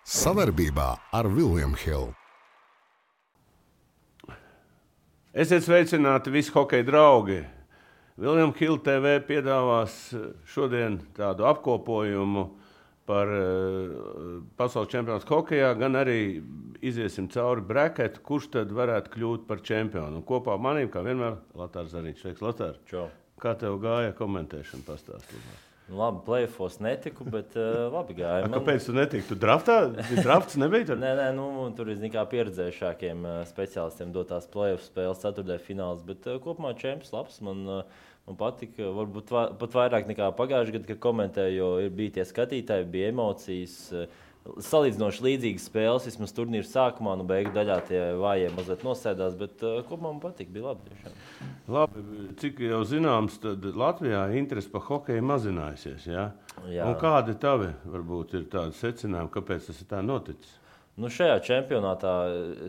Sadarbībā ar William Hill. Esiet sveicināti visi hokeja draugi. William Hill TV piedāvās šodien tādu apkopojumu par pasaules čempionātu hokejā, gan arī iziesim cauri braketu, kurš tad varētu kļūt par čempionu. Un kopā manīm, kā vienmēr, Latārs Zariņš. Sveiks, Latār. Čau. Kā tev gāja komentēšana pastāstīt? Labi, play-offos netiku, bet labi gāja. Kāpēc tu netiki? Tu draftā? Drafts nebija tur? Nē, tur ir kā pieredzējušākiem speciālistiem dotās play-off spēles, ceturtdaļu fināls, bet kopumā čempions labs. Man patika, varbūt pat vairāk nekā pagājušajā gadā, kad komentēju, jo bija tie skatītāji, bija emocijas. Salīdzinoši līdzīgas spēles, vismaz turnīra sākumā, beigu daļā tie vājie mazliet nosēdās, bet kopumā man patika, bija labi tiešām. Labi, cik jau zināms, tad Latvijā interese par hokeju mazinājusies, ja? Jā. Un kādi tavi, varbūt, ir tādi secinājumi, kāpēc tas ir tā noticis? Šajā čempionātā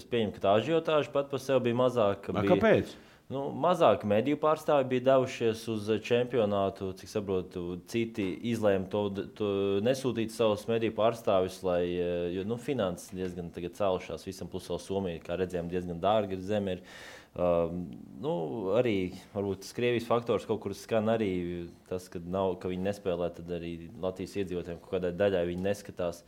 es pieņemu, ka tā ažiotāža pat par sevi bija mazāka. Kāpēc? Mazāk mediju pārstāvi bija devušies uz čempionātu, cik saprotu, citi izlēma to nesūtīt savus mediju pārstāvis, jo finanses diezgan tagad cēlušās visam, plus vēl Somija, kā redzējām, diezgan dārga zeme ir. Arī varbūt tas Krievijas faktors kaut kur skan arī tas, ka viņi nespēlē, tad arī Latvijas iedzīvotājiem kaut kādai daļai viņi neskatās.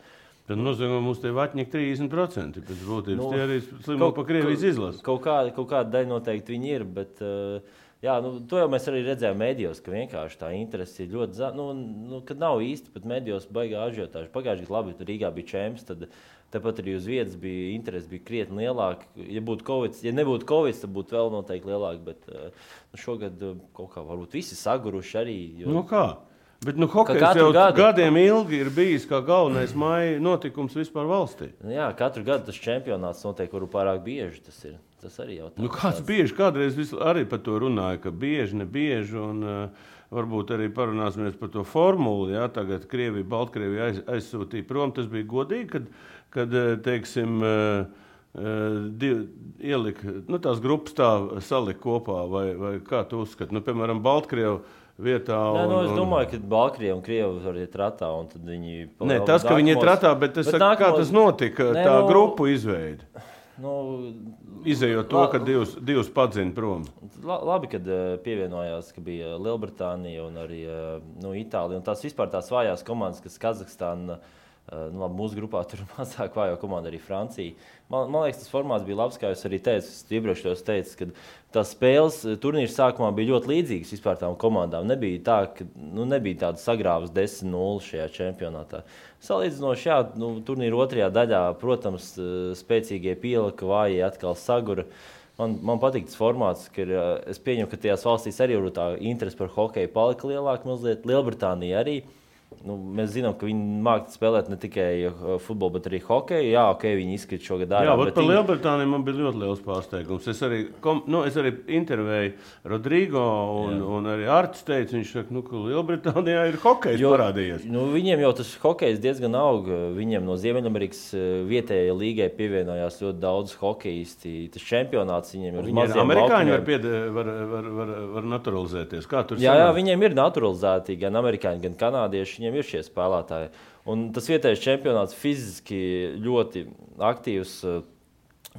Tad nozīmē, mums te vaķņīgi 30%. Pēc būtības tie arī slimo pa Krievijas izlasi. Kaut kāda daļa noteikti viņi ir, bet to jau mēs arī redzējām medijos, ka vienkārši tā interese ir ļoti kad nav īsti pat medijos baigā ažiotāža. Pagājušajā gadā labi, Rīgā bija čemps, tad tepat arī uz vietas bija interese, bija krietni lielāka. Ja nebūtu Covid, tad būtu vēl noteikti lielāka, bet šogad kaut kā varbūt visi saguruši arī. Kā? Bet hokejs jau gadiem ilgi ir bijis kā galvenais maija notikums vispār valstī. Jā, katru gadu tas čempionāts notiek, kuru pārāk bieži tas ir. Tas arī jautājums. Kāds bieži? Kādreiz arī par to runāja, ka bieži, nebieži, un varbūt arī parunāsimies par to formulu. Jā, tagad Krievija, Baltkrievija aizsūtīja prom. Tas bija godīgi, kad teiksim, ielika, tās grupas tā salika kopā, vai kā tu uzskati? Piemēram, Baltkrievu vietā. Es domāju, ka Baltkrievi un Krievi var iet ratā, un tad viņi... Nē, tas, ka viņi iet ratā, bet kā tas notika, tā grupu izveida? Izejot to, ka divus padzina prom. Labi, kad pievienojās, ka bija Lielbritānija un arī Itālija, un tās vispār tās vājās komandas, kas Kazahstāna, mūsu grupā tur mazāk vājo komanda arī Francija. Man liekas, tas formāts bija labs, kā jūs arī teicu, ka tās spēles turnīra sākumā bija ļoti līdzīgas vispār tām komandām. Nebija tā, ka nebija tāda sagrāvas 10-0 šajā čempionātā. Salīdzinoši, turnīra otrajā daļā, protams, spēcīgie pielika, vājie atkal sagura. Man patīk tas formāts, ka es pieņemu, ka tajās valstīs arī tā interese par hokeju palika lielāka mazliet. Lielbritānija arī. Mēs zinām, ka viņi māca spēlēt ne tikai futbolu, bet arī hokeju. Jā, viņi izkrīt šogad ārā. Jā, par Lielbritāniju man bija ļoti liels pārsteigums. Es arī intervēju Rodrigo un arī Artis teica, viņš saka, ka Lielbritānijā ir hokejs parādījies. Viņiem jau tas hokejs diezgan aug. Viņiem no Ziemeļamerikas vietējai līgai pievienojās ļoti daudz hokejisti. Tas čempionāts viņiem ir uz maziem amerikāņi var naturalizēties. Kā tur jā, viņiem ir naturalizēti gan amerikāņi, gan kanādieši. Viņiem ir šie spēlētāji. Un tas vietējais čempionāts fiziski ļoti aktīvs.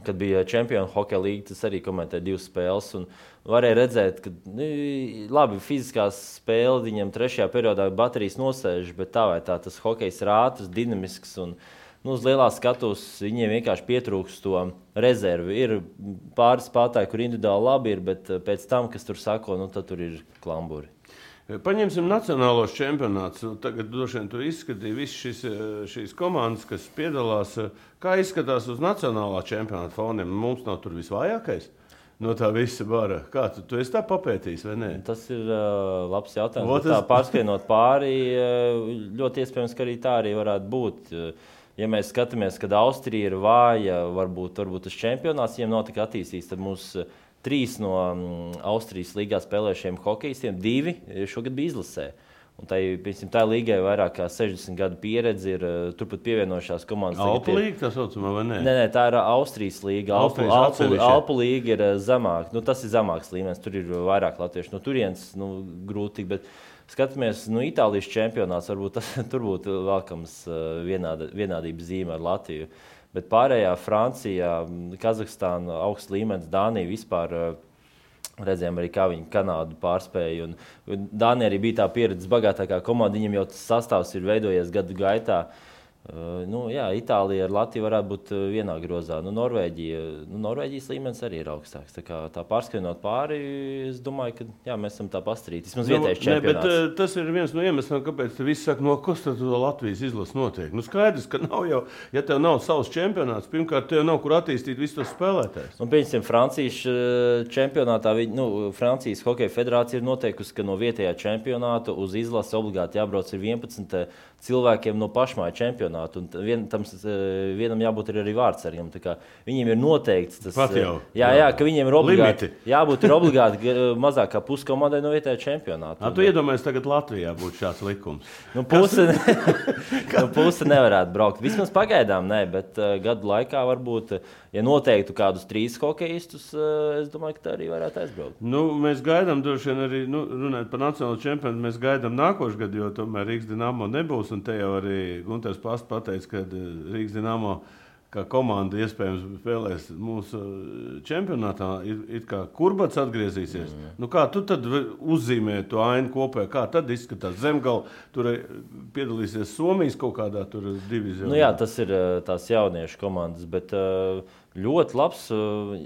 Kad bija čempionu hokeja līga, tas arī komentēja 2 spēles. Un varēja redzēt, ka labi, fiziskās spēle viņam 3. periodā baterijas nosēž, bet tā vai tā tas hokejs ir ātrs, dinamisks. Un, uz lielā skatuves viņiem vienkārši pietrūkst to rezervi. Ir pāris spēlētāji, kur individuāli labi ir, bet pēc tam, kas tur sako, tad tur ir klamburi. Paņemsim nacionālos čempionātus. Tagad droši vien tur izskatīja visas šīs komandas, kas piedalās. Kā izskatās uz nacionālā čempionāta foniem? Mums nav tur visvājākais no tā visa bara. Kā tu esi tā papētījis vai nē? Tas ir labs jautājums. Tā pārskrienot pāri, ļoti iespējams, ka arī tā arī varētu būt. Ja mēs skatāmies, kad Austrija ir vāja, varbūt tas čempionāts viņiem nav tik attīstīts, tad mums 3 no Austrijas līgā spēlējušiem hokejistiem, 2 šogad bija izlasē. Un tā līgai vairāk kā 60 gadu pieredze ir turpat pievienojušās komandas. Alpu līga, tā saucamā, vai ne? Nē, tā ir Austrijas līga. Alpu līga ir zemāk. Tas ir zemāks līmenis, tur ir vairāk latviešu. No turienes grūti, bet skatāmies, Itālijas čempionāts, varbūt tur būtu vēlkams vienādības zīme ar Latviju. Bet pārējā Francijā, Kazahstāna, augsts līmenis, Dānija vispār redzējām arī, kā viņi Kanādu pārspēja. Un Dānija arī bija tā pieredzes bagātākā komanda, viņam jau tas sastāvs ir veidojies gadu gaitā. Itālija ar Latviju varētu būt vienā grozā. Norvēģijas līmenis arī ir augstāks. Tā pārskrienot pāri, es domāju, ka mēs esam tā pastarīti. Vismaz vietējais čempionāts. Bet tas ir viens no iemesliem, kāpēc visi saka, kas tad Latvijas izlases notiek. Skaidrs, ka nav jau, ja tev nav savs čempionāts, pirmkārt, tev nav kur attīstīt visus tos spēlētājus. Pieņemsim, Francijas čempionātā, Francijas hokeja federācija ir noteikusi, ka no vietējā čempionāta uz izlasi obligāti jābrauc ir 11 cilvēkiem no pašmāju čempionātu. Vienam jābūt arī vārdsargam. Viņiem ir noteikts tas, ka viņiem ir obligāti mazāk kā pusi komandai no vietējā čempionāta. Tu iedomājies, tagad Latvijā būtu šāds likums? Puse nevarētu braukt. Vismaz pagaidām nē, bet gadu laikā varbūt, ja noteiktu kādus 3 hokejistus, es domāju, ka tā arī varētu aizbraukt. Mēs gaidām droši vien arī, runājot par nacionālo čempionātu, mēs gaidām nākošu gadu, jo tomēr Rīgas Dinamo nebūs. Un te jau arī Gunters Past pateica, ka Rīgas Dinamo kā komanda iespējams spēlēs mūsu čempionātā. Ir kā Kurbats atgriezīsies. Kā tu tad uzzīmē to ainu kopē? Kā tad izskatās? Zemgala tur piedalīsies Somijas kaut kādā tur divizionā? Tas ir tās jauniešu komandas, bet ļoti labs,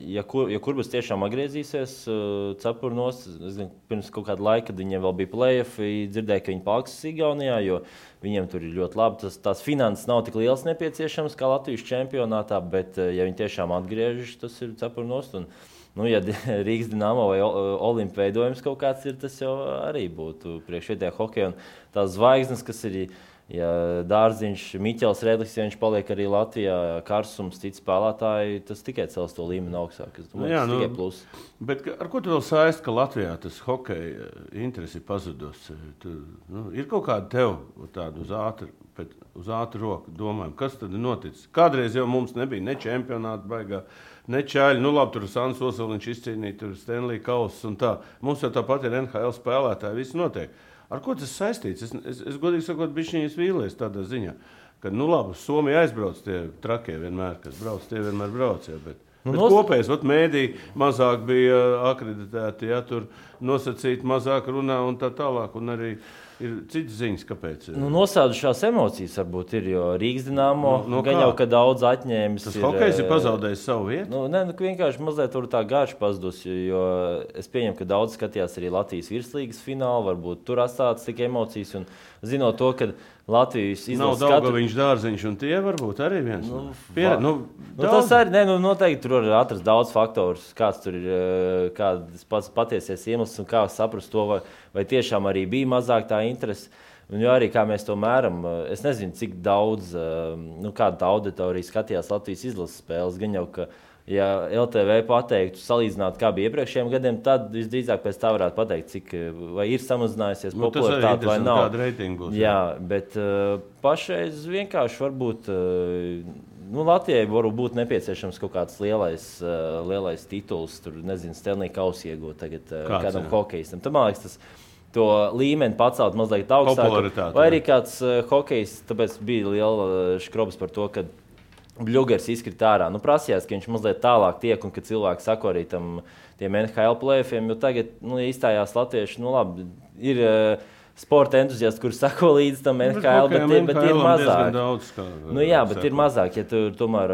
ja Kurbats tiešām atgriezīsies cepurnos. Pirms kaut kāda laika, kad viņiem vēl bija play-offi, dzirdēju, ka viņi paliks Igaunijā, jo viņiem tur ir ļoti labi. Tās finanses nav tik liels nepieciešams kā Latvijas čempionātā, bet ja viņi tiešām atgriežas, tas ir cepurnos. Ja Rīgas Dinamo vai Olimpa veidojums kaut kāds ir, tas jau arī būtu priekšvietējā hokeja. Un tās zvaigznes, kas ir Dārziņš, Miķels Redlis, ja viņš paliek arī Latvijā, Karsums, citi spēlētāji, tas tikai cels to līmeni augstāk. Es domāju, tas tikai plus. Bet ar ko tu vēl saist, ka Latvijā tas hokeja interesi ir pazudus? Ir kaut kāda tev tāda uz ātru roku domājuma, kas tad ir noticis? Kādreiz jau mums nebija ne čempionāta baigā, ne čaļi. Labi, tur Sants Osoliņš izcīnīja, tur Stanley Kauss un tā. Mums jau tāpat ir NHL spēlētāji, viss notiek. Ar ko tas saistīts? Es godīgi sakot, bišķiņas vīlies tādā ziņā, ka, labi, Somija aizbrauc tie trakie vienmēr, kas brauc, tie vienmēr brauc, bet kopējais, mēdī mazāk bija akreditēti, tur nosacīti mazāk runā un tā tālāk, un arī ir citas ziņas, kāpēc. Nosēdušās emocijas varbūt ir, jo Rīgas Dinamo gan jau, ka daudz atņēmis. Tas hokejs ir pazaudējis savu vietu? Vienkārši mazliet tā garš pazudus, jo es pieņemu, ka daudz skatījās arī Latvijas virslīgas finālu, varbūt tur atstātas tik emocijas, un zinot to, ka Latvijas izlases nav Daugaviņš, Dārziņš un tie varbūt arī viens. Tas arī, noteikti tur var atrast daudz faktorus, kāds tur ir, kāds pats patiesies iemesls un kā saprast to, vai tiešām arī bija mazāk tā interese. Un arī kā mēs to mēram, es nezinu, cik daudz, kāda auditorija skatījās Latvijas izlases spēles, gan jau, ka ja LTV pateiktu, salīdzināt, kā bija iepriekšējiem gadiem, tad visdrīzāk pēc tā varētu pateikt, vai ir samazinājusies popularitāte vai nav. Būs, jā, bet pašreiz vienkārši varbūt Latvijai varbūt būt nepieciešams kaut kāds lielais tituls, tur, nezinu, Stanley Kauss iegūt tagad kādam hokejistam. Tad, man liekas, to līmeni pacelt mazliet augstāk. Vai arī kāds hokejs, tāpēc bija liela škrobas par to, ka Bļugers izkrita ārā. Prasījās, ka viņš mazliet tālāk tiek un ka cilvēki sako arī tiem NHL play-offiem, jo tagad izstājās latvieši, labi, ir sporta entuziasti, kuri sako līdz tam NHL, bet ir mazāk. Daudz, bet ir mazāk, ja tu tomēr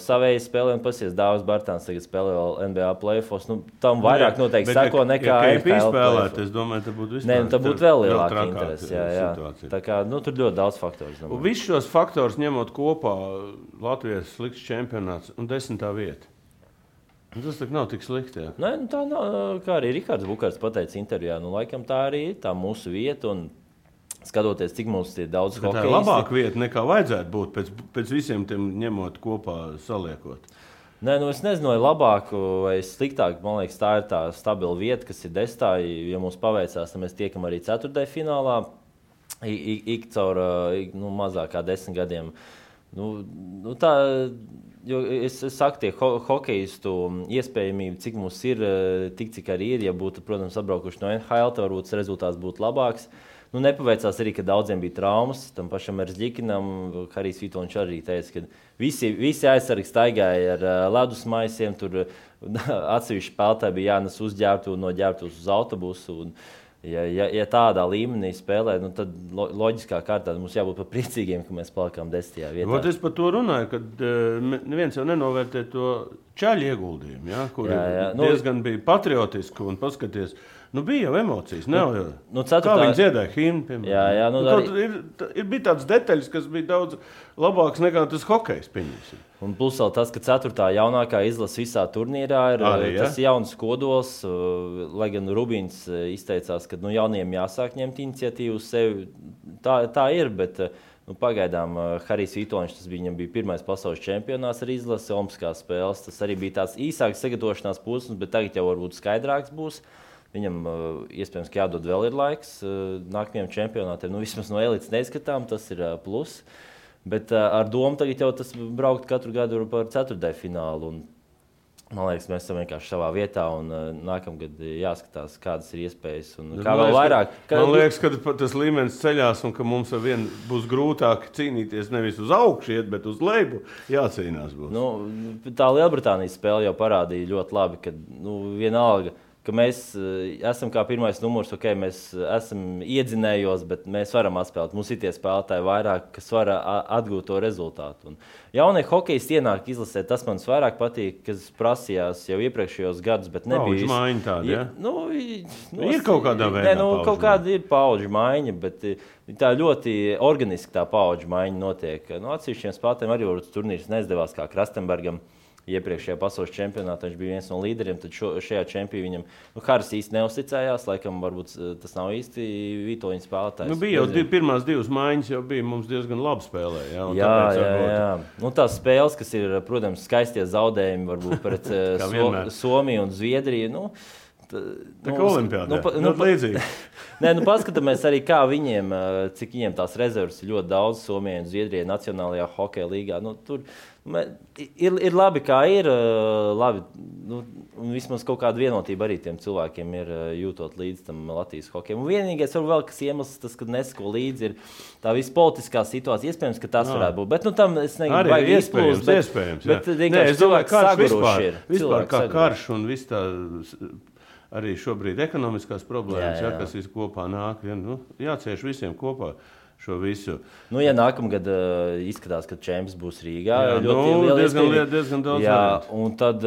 savēji spēlē un pasies Dāvis Bartāns tagad spēlē vēl NBA play-offos, tam vairāk noteikti sako nekā NHL play-offs. Es domāju, tā būtu vispār. Nē, tā būtu vēl lielāka interese. Jā. Tā kā, tur ļoti daudz faktoru. Visus šos faktorus ņemot kopā, Latvijas slikts čempionāts un 10. vieta. Tas nav tik slikti. Jā. Nē, tā nav, kā arī Rikards Bukārts pateica intervijā, laikam tā arī ir tā mūsu vieta un skatoties, cik mums ir daudz hokejisti. Tā ir labāka vieta nekā vajadzētu būt pēc visiem tiem ņemot kopā, saliekot. Nē, es nezinu, vai labāk vai sliktāk. Man liekas, tā ir tā stabila vieta, kas ir 10. Ja mums paveicās, tad mēs tiekam arī 4. finālā. ik caur mazāk kā 10 gadiem. Tā, jo es saku, tie hokeistu iespējamība, cik mums ir, tik cik arī ir, ja būtu, protams, atbraukuši no NHL, tad varbūt rezultāts būtu labāks. Nepaveicās arī, ka daudziem bija traumas, tam pašam Erzģikinam, Harijs Vitoļņš arī teica, ka visi aizsargi staigāja ar ledusmaisiem, tur atsevišķi spēlētāji bija jānes uzģērbtu un no ģērbtus uz autobusu. Ja tādā līmenī spēlē, tad loģiskā kārtā mums jābūt par priecīgiem, ka mēs palikām 10. vietā. Es par to runāju, kad neviens jau nenovērtē to čaļu ieguldījumu, ja, kur diezgan bija patriotiski un paskaties. Bija jau emocijas. Kā viņi dziedāja himnu, piemēram. Bija tādas detaļas, kas bija daudz labākas nekā tas hokejs, pieņemsim. Un plus vēl tas, ka 4. jaunākā izlase visā turnīrā ir tas jauns kodols, lai gan Rubīns izteicās, ka jauniem jāsāk ņemt iniciatīvu uz sevi. Tā ir, bet pagaidām Harijs Vitoļņš, viņam bija pirmais pasaules čempionāts ar izlasi, olimpiskās spēles. Tas arī bija tāds īsāks sagatavošanās posms, bet tagad jau varbūt skaidrāks būs. Viņam iespējams, ka jādod vēl ir laiks nākamajam čempionātiem. Vismaz no elites neizskatām, tas ir plus. Bet ar domu tagad jau tas braukt katru gadu par 4. finālu. Un, man liekas, mēs esam vienkārši savā vietā un nākamgad jāskatās, kādas ir iespējas. Un kā vēl vairāk. Man liekas, ka tas līmenis ceļās un ka mums ar vienu būs grūtāk cīnīties nevis uz augšu iet, bet uz leju jācīnās būs. Tā Lielbritānijas spēle jau parādīja ļoti labi, ka vienalga, ka mēs esam kā pirmais numurs, mēs esam iedzinējos, bet mēs varam atspēlēt. Mums ir tie spēlētāji vairāk, kas var atgūt to rezultātu. Un jaunie hokejisti ienāk izlasē, tas man vairāk patīk, kas prasījās jau iepriekšējos gadus, bet nebija. Paudžu maiņa tāda, ja? Ir kaut kādā veidā kaut kāda ir paudžu maiņa, bet tā ļoti organiski tā paudžu maiņa notiek. Atsevišķiem spēlētājiem arī varbūt turnīrs neizdevās, kā Krastenbergam. Iepriekšējā pasaules čempionātā viņš bija viens no līderiem, tad šajā čempionā viņam Haris īsti neuzticējās, laikam varbūt tas nav īsti Vitoļņa spēlētājs. Bija jau pirmās 2 maiņas, jau bija mums diezgan labi spēlē. Jā. Tās spēles, kas ir, protams, skaistie zaudējumi, varbūt pret Somiju un Zviedriju. Tā kā olimpiādā, līdzīgi. Paskatāmies arī, kā viņiem, cik viņiem tās rezerves ir ļoti daudz Somijai un Zviedrijai Nacionālajā hokeja līgā. Tur ir labi, kā ir. Labi, un vismaz kaut kāda vienotība arī tiem cilvēkiem ir jūtot līdz tam Latvijas hokejam. Un vienīgais vēl, kas iemesls tas, kad nesako līdzi, ir tā visa politiskā situācija. Iespējams, ka tas varētu būt. Bet tam es negribu baigi izplūst. Iespējams. Bet vienkārši cilvēki saguruši ir. Vispār kā karš un viss tā... Arī šobrīd ekonomiskās problēmas, kas visu kopā nāk. Jācieš visiem kopā šo visu. Ja nākamgad izskatās, ka čempions būs Rīgā, diezgan daudz. Un tad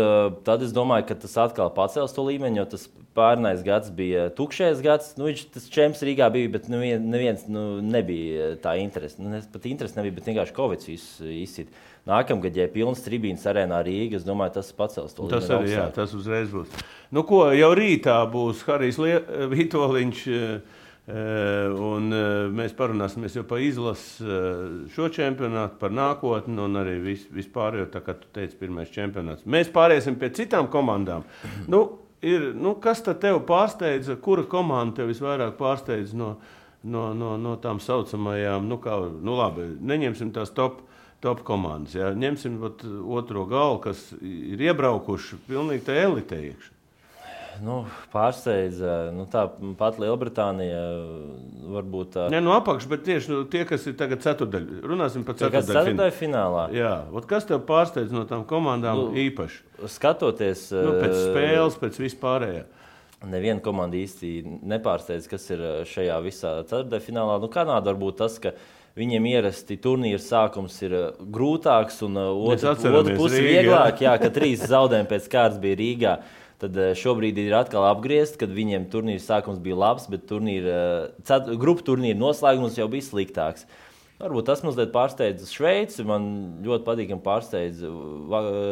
es domāju, ka tas atkal pacels to līmeni, jo tas pārnais gads bija tukšais gads. Tas čempions Rīgā bija, bet neviens nebija tā interese. Pat interese nebija, bet vienkārši Covid izsit. Nākamgad, ja ir pilns tribīnas arēnā Rīga, es domāju, tas pacels to līmeni. Tas arī, tas uzreiz būs. Jau rītā būs Harijs Vitoļņš, un mēs parunāsimies jau par izlasi šo čempionātu, par nākotni, un arī vispārējo, tā kā tu teici, pirmais čempionāts. Mēs pāriesim pie citām komandām. Kas tad tev pārsteidza, kura komanda tev visvairāk pārsteidza no tām saucamajām, labi, neņemsim tās top komandas. Ja? Ņemsim otro galu, kas ir iebraukuši pilnīgi tā elite iekšā. Pārsteidza. Tā pat Lielbritānija varbūt tā. Apakš, bet tieši tie, kas ir tagad ceturdaļ. Runāsim par ceturdaļ finālā. Jā, kas tev pārsteidz no tām komandām īpaši? Skatoties... pēc spēles, pēc vispārējā. Neviena komanda īsti nepārsteidz, kas ir šajā visā ceturdaļ finālā. Kanāda varbūt tas, ka viņiem ierasti turnīra sākums ir grūtāks un otra puse vieglāk, ka 3 zaudējumi pēc kārtas bija Rīgā. Tad šobrīd ir atkal apgriezt, kad viņiem turnīra sākums bija labs, bet grupu turnīra noslēgums jau bija sliktāks. Varbūt tas mazliet pārsteidz Šveici. Man ļoti patīkami pārsteidz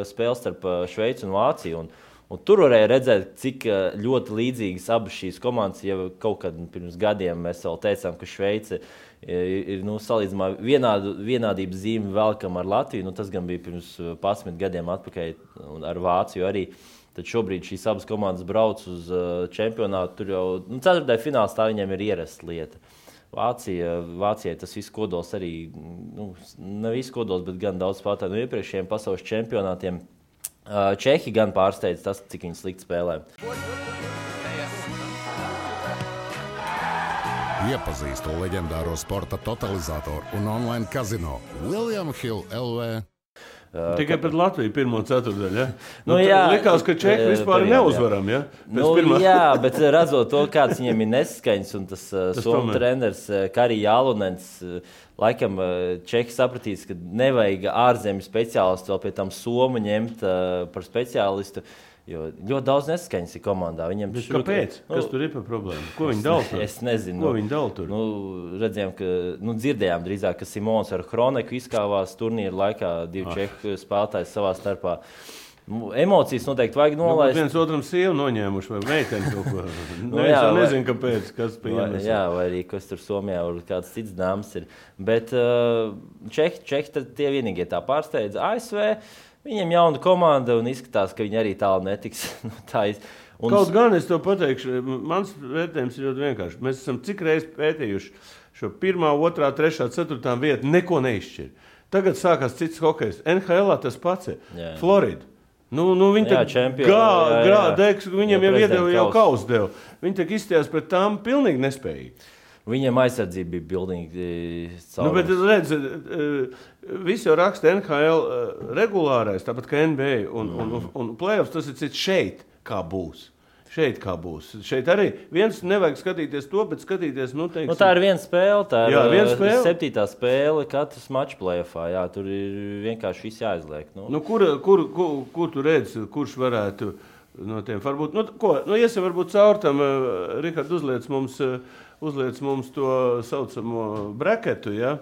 spēles starp Šveici un Vāciju. Un tur varēja redzēt, cik ļoti līdzīgas abas šīs komandas. Ja kaut kad pirms gadiem mēs vēl teicām, ka Šveice ir salīdzinājumā vienādības zīme velkam ar Latviju. Tas gan bija pirms 11 gadiem atpakaļ ar Vāciju arī. Tad šobrīd šīs abas komandas brauc uz čempionātu. Tur jau ceturtajā finālā tā viņiem ir ierasta lieta. Vācijai tas viss kodols arī, ne viss kodols, bet gan daudz spēlētāju no iepriekšējiem pasaules čempionātiem. Čehi gan pārsteidz tas, cik viņi slikti spēlē. Iepazīstu leģendāro sporta totalizatoru un online kazino William Hill LV. Tikai pret Latviju pirmo ceturtdaļu, ja? Jā, likās, ka Čehi vispār neuzvaram, ja? Jā, bet redzot to, kāds viņiem ir neskaņas, un tas somu treneris Kari Jālunens, laikam Čehi sapratīs, ka nevajag ārzemju speciālistu vēl pie tam somu ņemt par speciālistu. Jo ļoti daudz neskaņas ir komandā. Kāpēc? Kas tur ir par problēmu? Ko viņi dala tur? Es nezinu. Ko viņi dala tur? Redzējām, dzirdējām drīzāk, ka Simons ar Hroneku izkāvās turnīra laikā, 2 čehu spēlētājs savā starpā. Emocijas noteikti vajag nolaist. Viens otram sievu noņēmuši vai meiteni kaut ko. Nezinu, kāpēc, kas pieņemas. Jā, vai arī kas tur Somijā vai kāds cits dāmas ir. Bet Čehi tie vienīgie tā pārsteidz. ASV viņiem jauna komanda un izskatās, ka viņi arī tālu netiks. Kaut gan es to pateikšu, mans vērtējums ir ļoti vienkārši. Mēs esam cik reizes pētījuši šo 1., 2., 3., 4. vietu, neko neizšķir. Tagad sākās cits hokejs. NHL tas pats ir. Florida. Viņi viņiem jau kausu deva. Viņi tak izstījās pret tām pilnīgi nespējīgi. Viņiem aizsardzība bija pilnīgi caurums. Bet redz, visi jau raksta NHL regulārais, tāpat kā NBA un playoffs, tas ir cits šeit, kā būs. Šeit arī viens nevajag skatīties to, bet skatīties, teiksim... Tā ir viena spēle, tā ir 7. spēle katrs mačs playoffā, jā, tur ir vienkārši viss jāizliek. Kur tu redzi, kurš varētu no tiem, varbūt, iesim varbūt caur tam, Rihard, uzliec mums to saucamo braketu, ja?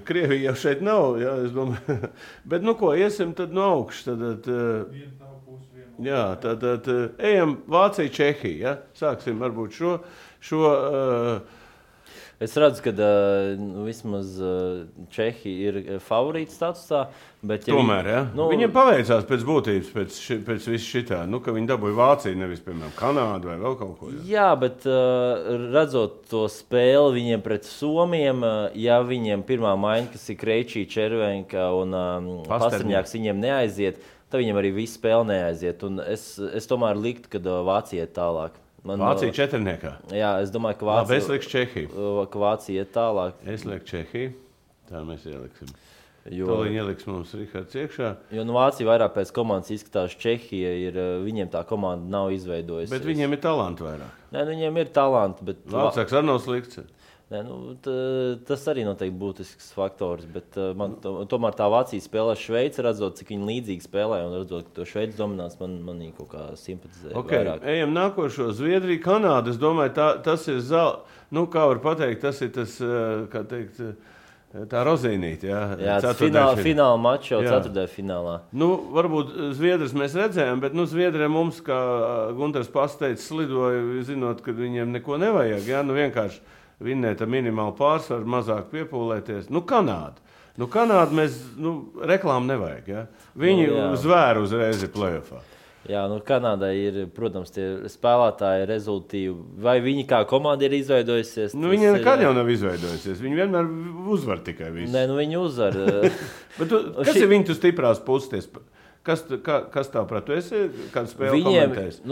Krievija jau šeit nav, ja, es domāju. Bet, iesim tad no augšas. Tad ejam Vācija, Čehija, ja? Sāksim varbūt šo Es redzu, ka vismaz Čehi ir favorīti statusā. Tomēr, ja? Viņiem paveicās pēc būtības, pēc viss šitā, ka viņi dabūja Vāciju, nevis, piemēram, Kanādu vai vēl kaut ko. Jā, bet redzot to spēli viņiem pret Somiem, ja viņiem pirmā maiņa, kas ir Kreičī, Červenka un Pasterņāks, viņiem neaiziet, tad viņiem arī viss spēle neaiziet. Un es tomēr liktu, ka Vācija iet tālāk. Vācija 4. Jā, es domāju, es lieku Čehiju. Ka Vācija iet tālāk. Es lieku Čehiju. Tā mēs ieliksim. Toliņi ieliks mums Rihards iekšā. Jo Vācija vairāk pēc komandas izskatās, Čehija viņiem tā komanda nav izveidojusies. Bet viņiem ir talanti vairāk. Nē, viņiem ir talanti, bet... Vācāks arī nav slikts. Nē, tas arī noteikti būtisks faktors, bet man tomēr tā Vācija spēlē Šveici, redzot, cik viņi līdzīgi spēlē, un redzot, ka to Šveici dominās, man kaut kā simpatizē vairāk. Ejam nākošo. Zviedrija, Kanāda, es domāju, tas ir kā var pateikt, tas ir tas, kā teikt, tā rozīnīte, jā. Jā, fināla mačs jau ceturtajā finālā. Varbūt Zviedrus mēs redzējām, bet Zviedriem mums, kā Gunters pasteicis, slidoja, zinot, ka viņiem neko nevajag, jā, vienkārši vinnēt ar minimālu pārsvaru, mazāk piepūlēties. Kanāda. Kanāda mēs, reklāmu nevajag, ja? Viņi zvēra uzreiz ir playoffā. Jā, Kanādai ir, protams, tie spēlētāji rezultīvi. Vai viņi kā komanda ir izveidojusies? Viņi nekad jau nav izveidojusies. Viņi vienmēr uzvar tikai visu. Nē, viņi uzvar. Bet kas ir viņu stiprās puses? Kas tā prāt? Tu esi kādu spēli komentējis?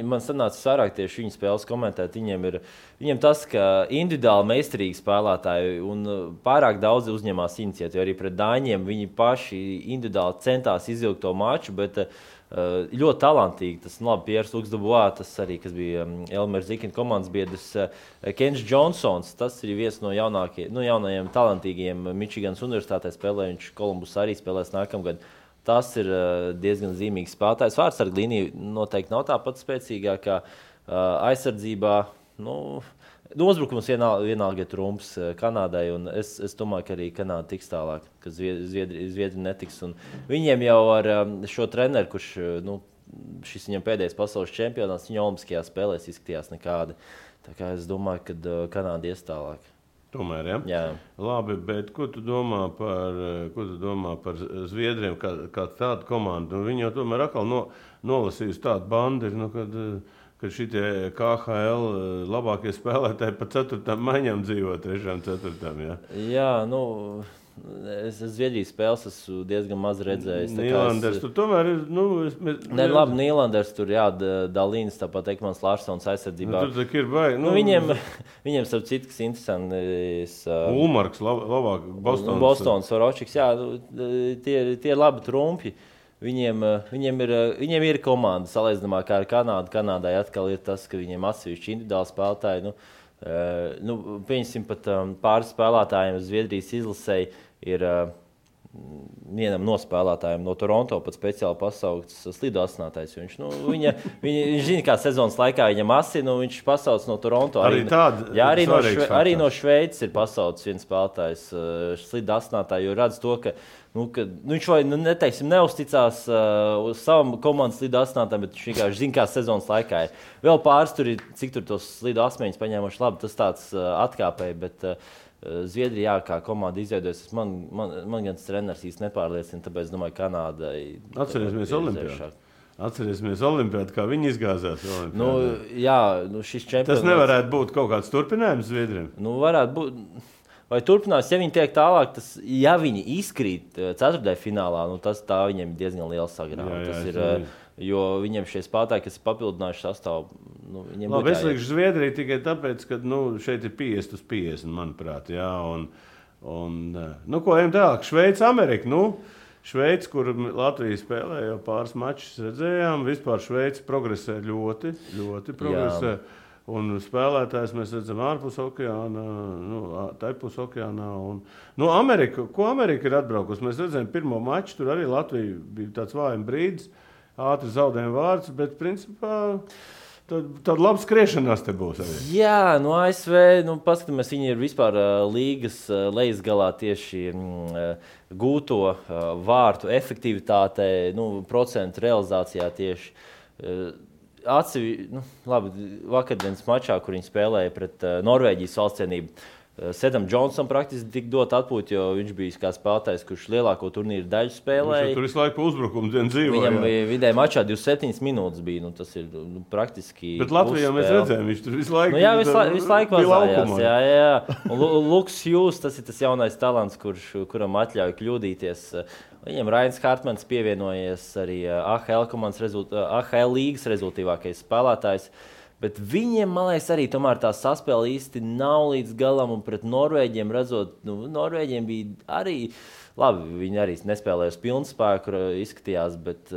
Man sanāca sarāk tieši viņu spēles komentēt. Viņiem tas, ka individuāli meistarīgi spēlētāji un pārāk daudz uzņemās iniciatīvu. Arī pret Dāņiem viņi paši individuāli centās izvilkt to maču, bet ļoti talantīgi. Tas Piers Luks-Dubois, tas arī, kas bija Elmers Zikina komandas biedrs, Kens Džonsons, tas ir viens no jaunajiem talantīgiem Mičiganas universitātē spēlē, viņš Kolumbus arī spēlēs nākamgad. Tas ir diezgan zīmīgs spēlētājs. Vārtsarga līnija noteikti nav tā pat spēcīgākā aizsardzībā. Uzbrukums vienalga ir trumps Kanādai, un es domāju, ka arī Kanāda tiks tālāk, ka Zviedri netiks. Un viņiem jau ar šo treneru, kurš šis viņam pēdējais pasaules čempionāts, viņa olimpiskajās spēlēs izskatījās nekādi. Tā kā es domāju, ka Kanāda ies tālāk. Tomēr, ja? Jā. Labi, bet ko tu domā par Zviedriem kā tādu komandu? Viņi jau tomēr atkal nolasījusi tādu bandu, kad ka šitie KHL labākie spēlētāji pa 4. maiņām dzīvo 3. 4. Ja? Jā, es Zviedrijas spēles esmu diezgan maz redzējis. Nīlanders tur tomēr ir, labi, Nīlanders tur, jā, Dalīns, tāpat Ekmans Larsons aizsardzībā. Tur tak ir baigi. Viņiem starp citu, kas interesants. Ulmarks, labāk, Bostons, Soročiks, jā, tie ir labi trumpi. Viņiem ir komanda salīdzinājumā kā ar Kanādu. Kanādai atkal ir tas, ka viņiem atsevišķi individuāli spēlētāji. Pieņemsim pat pāris spēlētājiem Zviedrijas izlasēji ir vienam no spēlētājiem no Toronto pat speciāli pasaukts slidu asinātājs. Viņš zina, kā sezonas laikā viņam asina, viņš pasauc no Toronto. Arī no Šveices ir pasaucis viens spēlētājs slidu asinātāju, jo redz to, ka viņš vai neusticās uz savam komandas slidu asinātājiem, bet viņš vienkārši zina, kā sezonas laikā ir. Vēl pāris tur ir, cik tur tos slidu asmeņus paņēmuši labi, tas tāds atkāpēji, bet Zviedrijā kā komanda izveidojas, man gan treneris īsti nepārliecina, tāpēc domāju, Kanādai. Atcerēsimies Olimpiādu, kā viņi izgāzās. Šis čempionāts. Tas nevarētu būt kaut kāds turpinājums Zviedriem? Varētu būt. Vai turpinās, ja viņi tiek tālāk, ja viņi izkrīt 4. finālā, tā viņiem ir diezgan liela sagrāva. Jo viņiem šie spēlētāji, kas ir papildinājuši sastāvu, viņiem būtu jāiet. Es likšu Zviedriju tikai tāpēc, ka šeit ir 50/50, manuprāt. Jā, ko ejam tālāk? Šveica, Amerika. Šveica, kur Latvija spēlē jau pāris mačus, redzējām. Vispār Šveica progresē ļoti progresē. Jā. Un spēlētājs mēs redzam ārpus okeāna, taipus okeānā. Amerika, ko Amerika ir atbraukusi? Mēs redzējām pirmo maču, tur arī Latvija bija tāds vājums brīdis, ātri zaudējuma vārds, bet principā tāda laba skriešanās te būs arī. Jā, ASV, paskatāmies, viņi ir vispār līgas lejasgalā tieši gūto vārtu efektivitātē, procentu realizācijā tieši. Vakardienas mačā, kur viņi spēlēja pret Norvēģijas valstsienību, Sedam Džonsam praktiski tika dot atpūta, jo viņš bija kā spēlētājs, kurš lielāko turnīru daļu spēlēja. Tur visu laiku uzbrukums dzīvoja. Viņam vidēji mačā 27 minūtes bija. Tas ir praktiski. Bet Latvijā mēs redzējām, viņš tur visu laiku visu laiku vazājās. Jā. Luks Hughes, tas ir tas jaunais talants, kuram atļauj kļūdīties. Viņam Rains Hartmans pievienojies arī AHL līgas rezultātīvākais spēlētājs. Bet viņiem, man liekas, arī tomēr tā saspēle īsti nav līdz galam. Un pret Norvēģiem redzot, Norvēģiem bija arī labi. Viņi arī nespēlēja uz pilnu spēku, izskatījās. Bet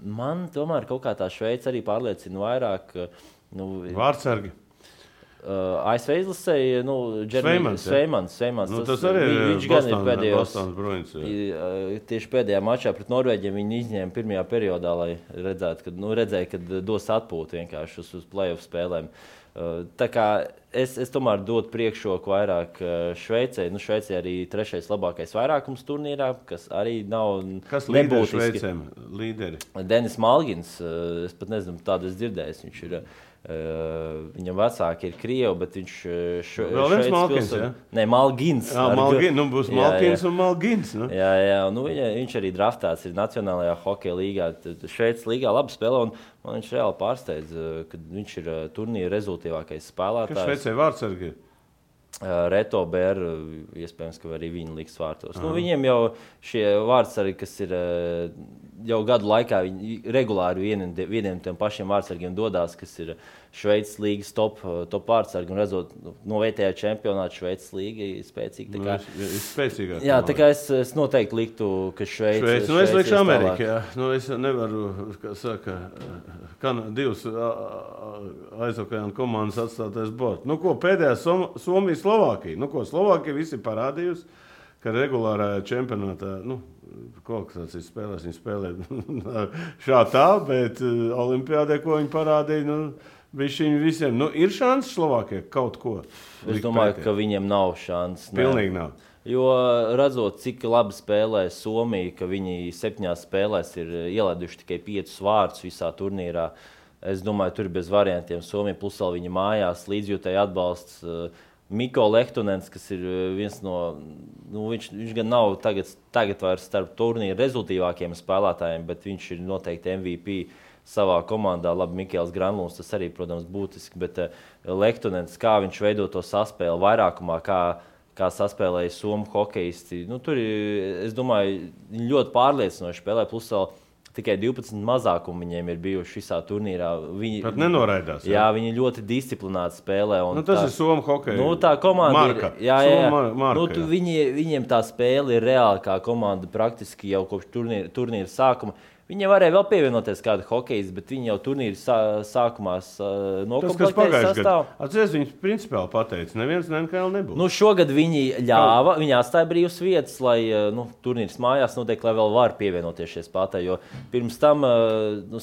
man tomēr kaut kā tā Šveice arī pārliecina vairāk. Vārtsargi. ASV izlasēja Sveimans. Tas arī viņš gan ir pēdējos. Tieši pēdējā mačā pret Norvēģiem viņi izņēma pirmajā periodā, lai redzēja, ka dos atpūtu vienkārši uz play-off spēlēm. Tā kā es tomēr dotu priekšroku vairāk Šveicei. Šveicei arī 3. labākais vairākums turnīrā, kas arī nav nebūtiski. Kas līderi Šveicēm? Līderi? Denis Malgins, es pat nezinu, tādu es dzirdējis. Viņš ir viņam vecāki ir krievi, bet viņš vēl viens Malgins, jā? Nē, Malgins. Būs Malgins un Malgins. Jā. Viņš arī draftēts ir Nacionālajā hokeja līgā. Šveices līgā labi spēlē, un man viņš reāli pārsteidz, ka viņš ir turnīra rezultātīvākais spēlētājs. Kas Šveicē vārtsargi ir? Reto Bēru, iespējams, ka arī viņi liks vārtos. Viņiem jau šie vārtsargi, kas ir jau gadu laikā, viņi regulāri vieniem tiem pašiem vārtsargiem dodās, kas ir Šveices līgas top vārtsargi. Un redzot, no vietējā čempionāta Šveices līga ir spēcīga. Ir spēcīgāk. Jā, tā kā es noteikti liktu, ka Šveice. Es likšu Ameriku, jā. Es nevaru, kā saka, divas aizokeāna komandas atstātais bort. Pēdējā Somija, Slovākija. Slovākija visi parādījusi, ka regulārā čempionātā, kvalifikācijas spēlēs viņi spēlē šā tā, bet Olimpiādē, ko viņi parādīja, viņi visiem. Ir šanses Slovākijai kaut ko? Es domāju, ka viņiem nav šanses. Pilnīgi nav. Jo redzot, cik labi spēlē Somija, ka viņi 7 spēlēs ir ielaiduši tikai 5 vārdus visā turnīrā. Es domāju, tur bez variantiem Somija plus vēl viņa mājās līdzjūtēji atbalsts. Mikko Lehtonens, kas ir viens no, viņš gan nav tagad vairs starp turnīra rezultīvākiem spēlētājiem, bet viņš ir noteikti MVP savā komandā. Labi, Mikēls Granlunds, tas arī, protams, būtiski, bet Lehtonens, kā viņš veido to saspēli vairākumā, kā saspēlēja somu hokeisti. Nu, tur, es domāju, ļoti pārliecinoši spēlē, plus vēl tikai 12 mazākumi viņiem ir bijuši visā turnīrā. Viņi pat nenoraidās. Jā, viņi ļoti disciplināti spēlē. Un tas ir somu hokeja. Nu, tā komanda marka. Jā. Marka, nu, viņiem tā spēle ir reāli kā komanda praktiski jau kopš turnīra sākuma. Viņiem varēja vēl pievienoties kāda hokejas, bet viņi jau turnīra sākumā nokomplektēja sastāvu. Atceries, viņi principāli pateica, neviens NHL nebūs. Nu, šogad viņi ļāva, viņi atstāja brīvas vietas, lai turnīrs mājās notiek, lai vēl var pievienoties šie spēlētāji, jo pirms tam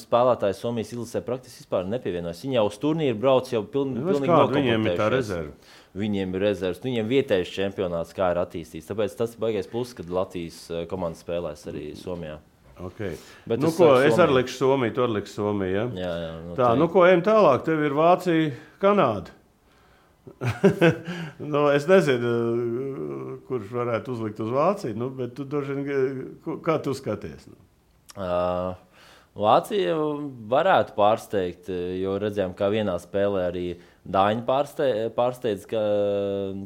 spēlētāji Somijas izlasē praktiski vispār nepievienojas. Viņi jau uz turnīru brauc jau pilnīgi nokomplektējušies. Viņiem ir tā rezerve? Viņiem ir rezerves, viņiem vietējais čempionāts, kā ir attīstīts. Tāpēc tas ir baigais pluss, kad Latvijas komanda spēlēs arī Somijā. Okay. Nu, es arī likšu Somiju, tu arī liksi Somiju, ja? Jā, tā, ko ejam tālāk, tev ir Vācija, Kanāda. Es nezinu, kurš varētu uzlikt uz Vāciju, bet tu kā tu skaties? Vācija varētu pārsteigt, jo redzējām, kā vienā spēlē arī Dāņi pārsteidz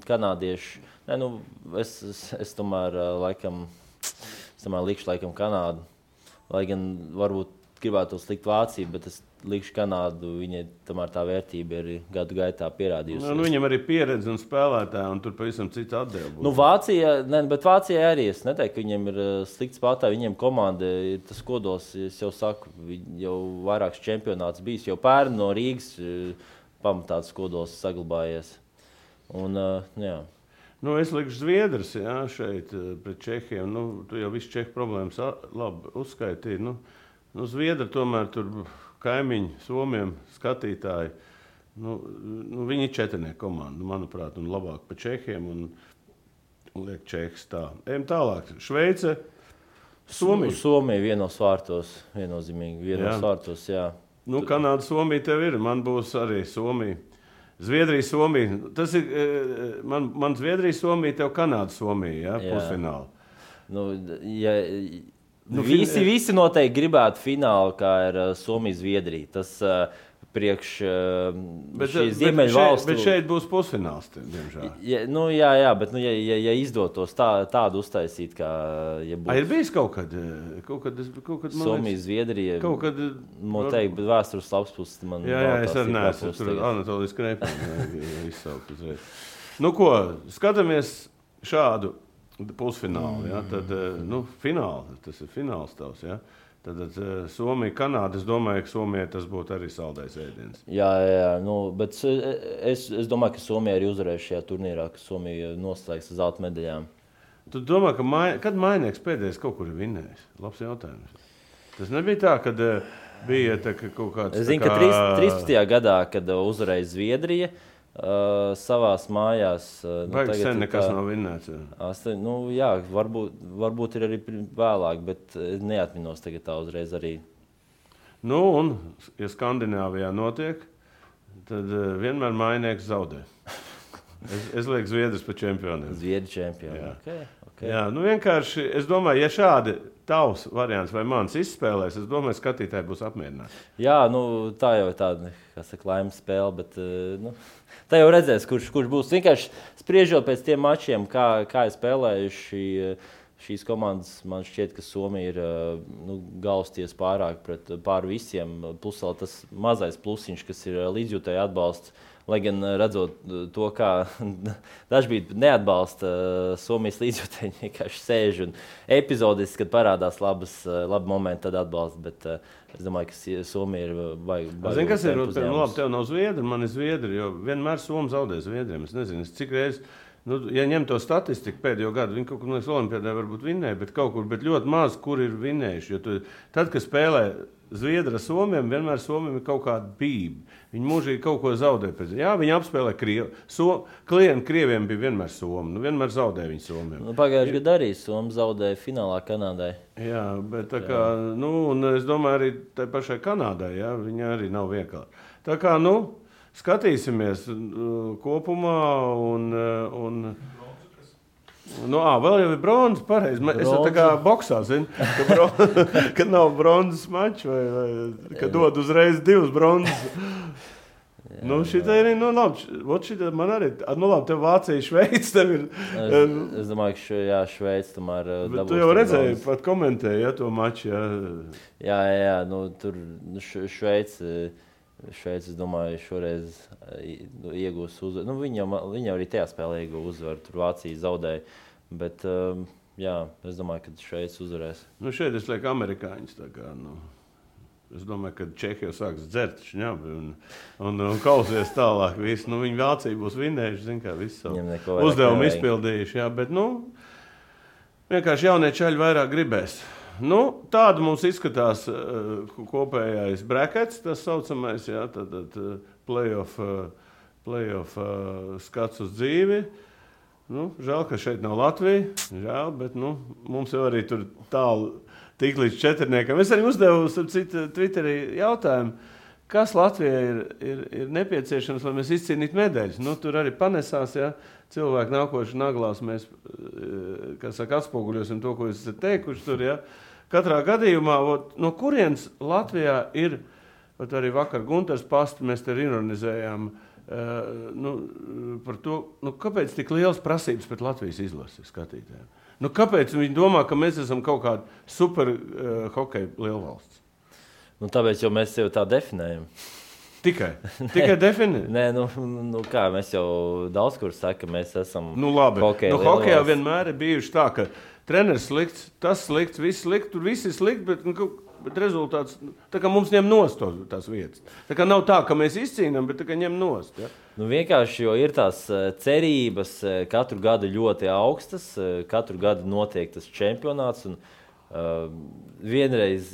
kanādieši. Es tomēr likšu laikam Kanādu. Lai gan varbūt gribētu slikt Vāciju, bet es likšu Kanādu, viņai tomēr tā vērtība ir gadu gaitā pierādījusi. Viņam arī pieredze un spēlētāji, un tur pavisam cits atdeva būs. Bet Vācijai arī es neteiktu, ka viņiem ir slikts spēlētāji, viņiem komanda ir tas kodols, es jau saku, jau vairāks čempionāts bijis, jau pērn no Rīgas pamatāts kodols saglabājies. Un, jā. Es likšu Zviedrus, šeit pret Čehiem. Tu jau visu Čehu problēmas labi uzskaitīji. Zviedri tomēr tur kaimiņi, Somiem, skatītāji. Viņi ir četrnieku komanda, manuprāt, un labāk pa Čehiem. Un liek Čehs tā. Ejam tālāk. Šveice, Somija. Somija vienos vārtos, viennozīmīgi. Vienos vārtos, jā. Kanāda, Somija tev ir. Man būs arī Somija. Zviedrija, Somija. Tas ir man Zviedrija, Somija, tev Kanāda, Somija, pusfināli. Visi noteikti gribētu finālu, kā ir Somija, Zviedrija. Tas priekš šīs Ziemeļvalstu. Bet šeit būs pusfināls, diemžēl. Jā, bet ja izdotos tādu uztaisīt, kā būtu. Ir bijis kaut kad Somija, Zviedrija. Kaut kad noteikti, bet vēstures labs puses man. Jā, es arī neesmu tur Anatolijas Krēpēni izsaukt uzreiz. Skatāmies šādu pusfinālu, tad, fināli, tas ir fināls tavs, Tad Somija, Kanāda, es domāju, ka Somijai tas būtu arī saldais ēdiens. Jā, bet es domāju, ka Somija arī uzvarēs šajā turnīrā, ka Somija noslēgs uz zelta medaļām. Tu domā, kad Mainieks pēdējais kaut kur ir vinnējis? Labs jautājums. Tas nebija tā, kad bija kaut kāds... Es zinu, ka 13. gadā, kad uzvarēja Zviedrija, savās mājās. Baigi sen nekas nav vinnēts. Jā, varbūt ir arī vēlāk, bet neatminos tagad tā uzreiz arī. Un, ja Skandināvijā notiek, tad vienmēr Mainieks zaudē. Es lieku Zviedrus pa čempioniem. Zviedri čempioni, okay. Jā, vienkārši, es domāju, ja šādi tavs variants vai mans izspēlēs, es domāju, skatītāji būs apmierināti. Jā, tā jau ir tāda, laimes spēle, bet tā jau redzēs, kurš būs. Vienkārši spriežot pēc tiem mačiem, kā ir spēlējuši šīs komandas, man šķiet, ka Somija ir galvsties pār visiem. Plus vēl tas mazais plusiņš, kas ir līdzjūtēji atbalsts. Lai gan redzot to, kā dažkārt neatbalsta Somijas līdzjūtēji, vienkārši sēž un epizodiski, kad parādās labi momenti, tad atbalsta. Bet es domāju, ka Somija ir baigi. Zini, kas ir? Labi, tev nav Zviedri, man ir Zviedri, jo vienmēr Somi zaudē Zviedriem. Es nezinu, cik reizes, ja ņem to statistiku pēdējo gadu, viņi kaut kur no Olimpiādē varbūt vinnēja, bet ļoti maz, kur ir vinnējuši. Jo tad, kad spēlē Zviedri ar Somiem, vienmēr Somiem ir kaut kāda bība. Viņi mūžīgi kaut ko zaudē. Jā, viņi apspēlē Krievu. Klienti Krieviem bija vienmēr Somi. Vienmēr zaudē viņi Somiem. Pagājušajā gadā arī Somi zaudēja finālā Kanādai. Jā, bet tā kā, un es domāju arī tai pašai Kanādai, viņa arī nav vienkārši. Tā kā, skatīsimies kopumā un Nu, vēl jau ir bronzas, pareizi. Es jau tā kā boksā, zinu, ka nav bronzas mačs vai ka dod uzreiz 2 bronzas. Nu, šitā ir, šitā man arī, labi, tev Vācija, Šveica, tev ir... Es domāju, ka Šveica tomēr dabūs. Tu jau redzēji, pat komentēji, to maču, Jā, tur Šveica, es domāju, šoreiz iegūs uzvaru. Viņa arī tajā spēlē iegūs uzvaru, tur Vācija zaudēja, bet, es domāju, ka Šveica uzvarēs. Šeit es lieku amerikāņus, tā kā, Es domāju, ka Čehija sāks dzert šņabi un kausies tālāk. Viņi Vācija būs vinnējuši, zin kā, visu savu uzdevumu izpildījuši. Jā, bet, vienkārši jaunie čaļi vairāk gribēs. Tāda mums izskatās kopējais brackets, tas saucamais, jā, tad playoff skats uz dzīvi. Žēl, ka šeit nav Latvija, žēl, bet, mums jau arī tur tālu tik līdz 4. Es arī uzdevu Twitterī jautājumu, kas Latvijai ir nepieciešams, lai mēs izcīnītu medaļas. Tur arī panesās, ja cilvēki nākoši naglās, mēs, atspoguļosim to, ko jūs esat teikuši tur, ja. Katrā gadījumā, no kurienes Latvijā ir, arī vakar Gunters Pasta, mēs te ironizējām, par to, kāpēc tik liels prasības pret Latvijas izlasi skatītājiem? Kāpēc viņi domā, ka mēs esam kaut kāda super hokeja lielvalsts? Tāpēc, jo mēs sevi tā definējam. Tikai definējam? Nē, kā, mēs jau daudz kur saka, mēs esam labi. Hokeja lielvalsts. Hokejā vienmēr ir bijuši tā, ka treneris slikts, tas slikts, viss slikts, tur viss ir slikts, bet rezultāts, tā kā mums ņem nost tās vietas. Tā kā nav tā, ka mēs izcīnām, bet tā kā ņem nost. Ja? Vienkārši, jo ir tās cerības katru gadu ļoti augstas, katru gadu notiek tas čempionāts. Un, vienreiz,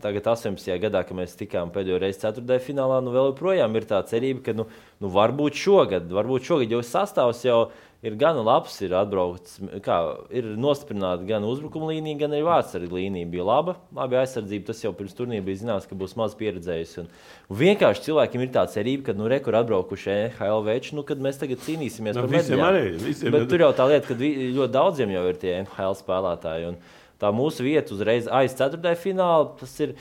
tagad 18. gadā, kad mēs tikām pēdējo reizi 4. finālā, vēl joprojām ir tā cerība, ka varbūt šogad, jo sastāvs jau ir gan labs, ir atbraukts, ir nostiprināta gan uzbrukuma līnija, gan arī vārdsarga līnija bija laba. Labi aizsardzība, tas jau pirms turnīra bija zināms, ka būs maz pieredzējusi. Un vienkārši cilvēkiem ir tā cerība, ka rekur atbraukuši NHL veči, kad mēs tagad cīnīsimies par medaļām. Bet tur jau tā lieta, ka ļoti daudziem jau ir tie NHL spēlētāji. Un tā mūsu vieta uzreiz aiz 4. fināla, tas ir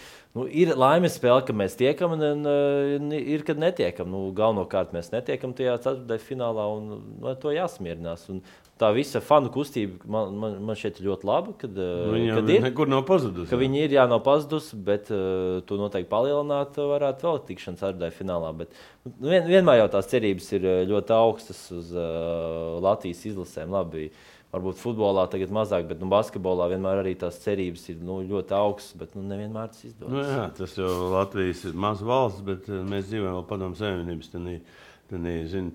laimes spēle, ka mēs tiekam, un ir, kad netiekam. Galvenokārt mēs netiekam tajā 4. finālā, un to jāsmierinās. Un tā visa fanu kustība man šeit ir ļoti laba, kad ir. Nekur nav pazudusi. Ka viņi ir, nav pazudusi, bet to noteikti palielināt varētu vēl tikšanu 4. finālā. Bet vienmēr jau tās cerības ir ļoti augstas uz Latvijas izlasēm. Labi, varbūt futbolā tagad mazāk, bet basketbolā vienmēr arī tās cerības ir ļoti augstas, bet nevienmēr tas izdodas. Jā, tas jau Latvijas ir maz valsts, bet mēs dzīvojam vēl Padomju Savienības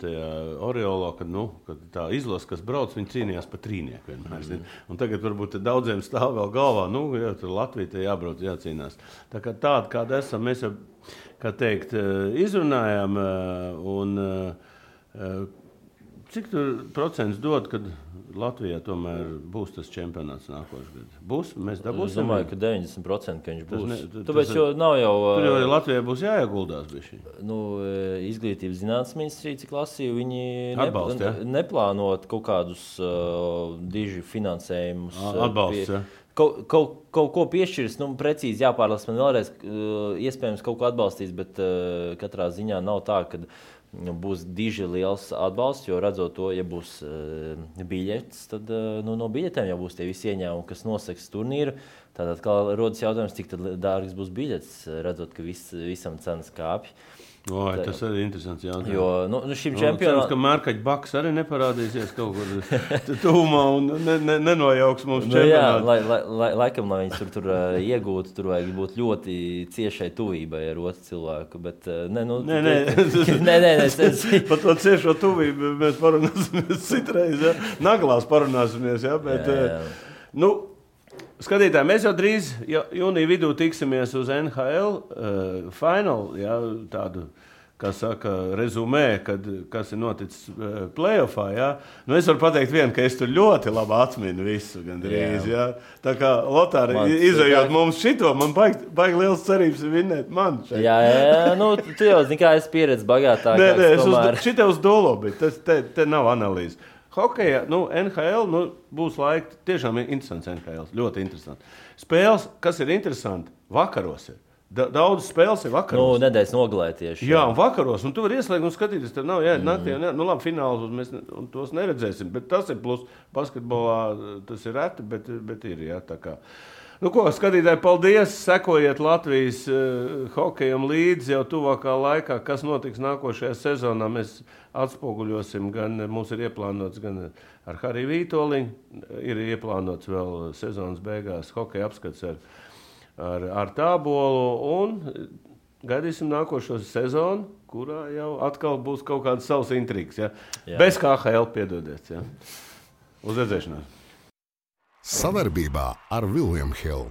tajā oreolā, kad tā izlase, kas brauc, viņi cīnījās par trīnieku vienmēr. Un tagad varbūt daudziem stāv vēl galvā, tur Latvija te jābrauc, jācīnās. Tā kā tāda, kāda esam, mēs jau, kā teikt, izrunājām, un cik tur procents dod, kad Latvijā tomēr būs tas čempionāts nākošais gads? Būs? Mēs dabūsim? Es domāju, ka 90%, ka viņš būs. Tāpēc jau nav jau... Tur jau Latvijai būs jāieguldās bišķi. Izglītības zinātnes ministrija, cik lasīju, viņi neplānot kaut kādus diži finansējumus. Atbalsts, ja? Kaut ko piešķirs, precīzi jāpārlas man vēlreiz, iespējams kaut ko atbalstīs, bet katrā ziņā nav tā, ka būs diži liels atbalsts, jo redzot to, ja būs biļetes, tad no biļetēm jau būs tie visi ieņēmumi, kas noseks turnīru. Tātad, kā rodas jautājums, cik tad dārgas būs biļetes, redzot, ka visam cenas kāpj. Tas arī interesants jautājums. Jo, šim čempionam... Cerams, ka Mārkaģa Baks arī neparādīsies kaut kur tuvumā un nenojauks mums čempionātu. Jā, laikam, lai viņas tur iegūtu, tur vajag būt ļoti ciešai tuvībai ar otru cilvēku, bet Par to ciešo tuvību mēs parunāsimies citreiz, ja? Naglās parunāsimies, ja? Bet, skatītāji, mēs jau drīz jūnija vidū tiksimies uz NHL final, ja, tādu, kā saka, rezumē, kas ir noticis playoffā. Ja. Es varu pateikt vienu, ka es tur ļoti labi atminu visu gandrīz. Ja. Tā kā Lotāri, izejot mums šito, man baigi liels cerības vinnēt man šeit. Jā, tu jau zini, kā es pieredzi bagātākāks. Šitie uz dolo, bet te nav analīze. Hokeja, NHL, būs laika, tiešām ir interesants NHL, ļoti interesants. Spēles, kas ir interesanti, vakaros ir. Daudz spēles ir vakaros. Nedēļas nogalē tieši. Jā, un vakaros, un tu vari ieslēgt un skatīties, tev nav jāiet naktī, labi, finālus mēs tos neredzēsim, bet tas ir plus basketbolā, tas ir reti, bet ir, jā, tā kā. Skatītāji, paldies, sekojiet Latvijas hokejam līdzi jau tuvākā laikā, kas notiks nākošajā sezonā, mēs atspoguļosim, gan mums ir ieplānots, gan ar Hariju Vītoliņu, ir ieplānots vēl sezonas beigās hokeja apskats ar Tābolu un gaidīsim nākošo sezonu, kurā jau atkal būs kaut kāds savs intrigs. Ja? Bez KHL, piedodiet. Ja? Uz redzēšanos. Sadarbībā ar William Hill.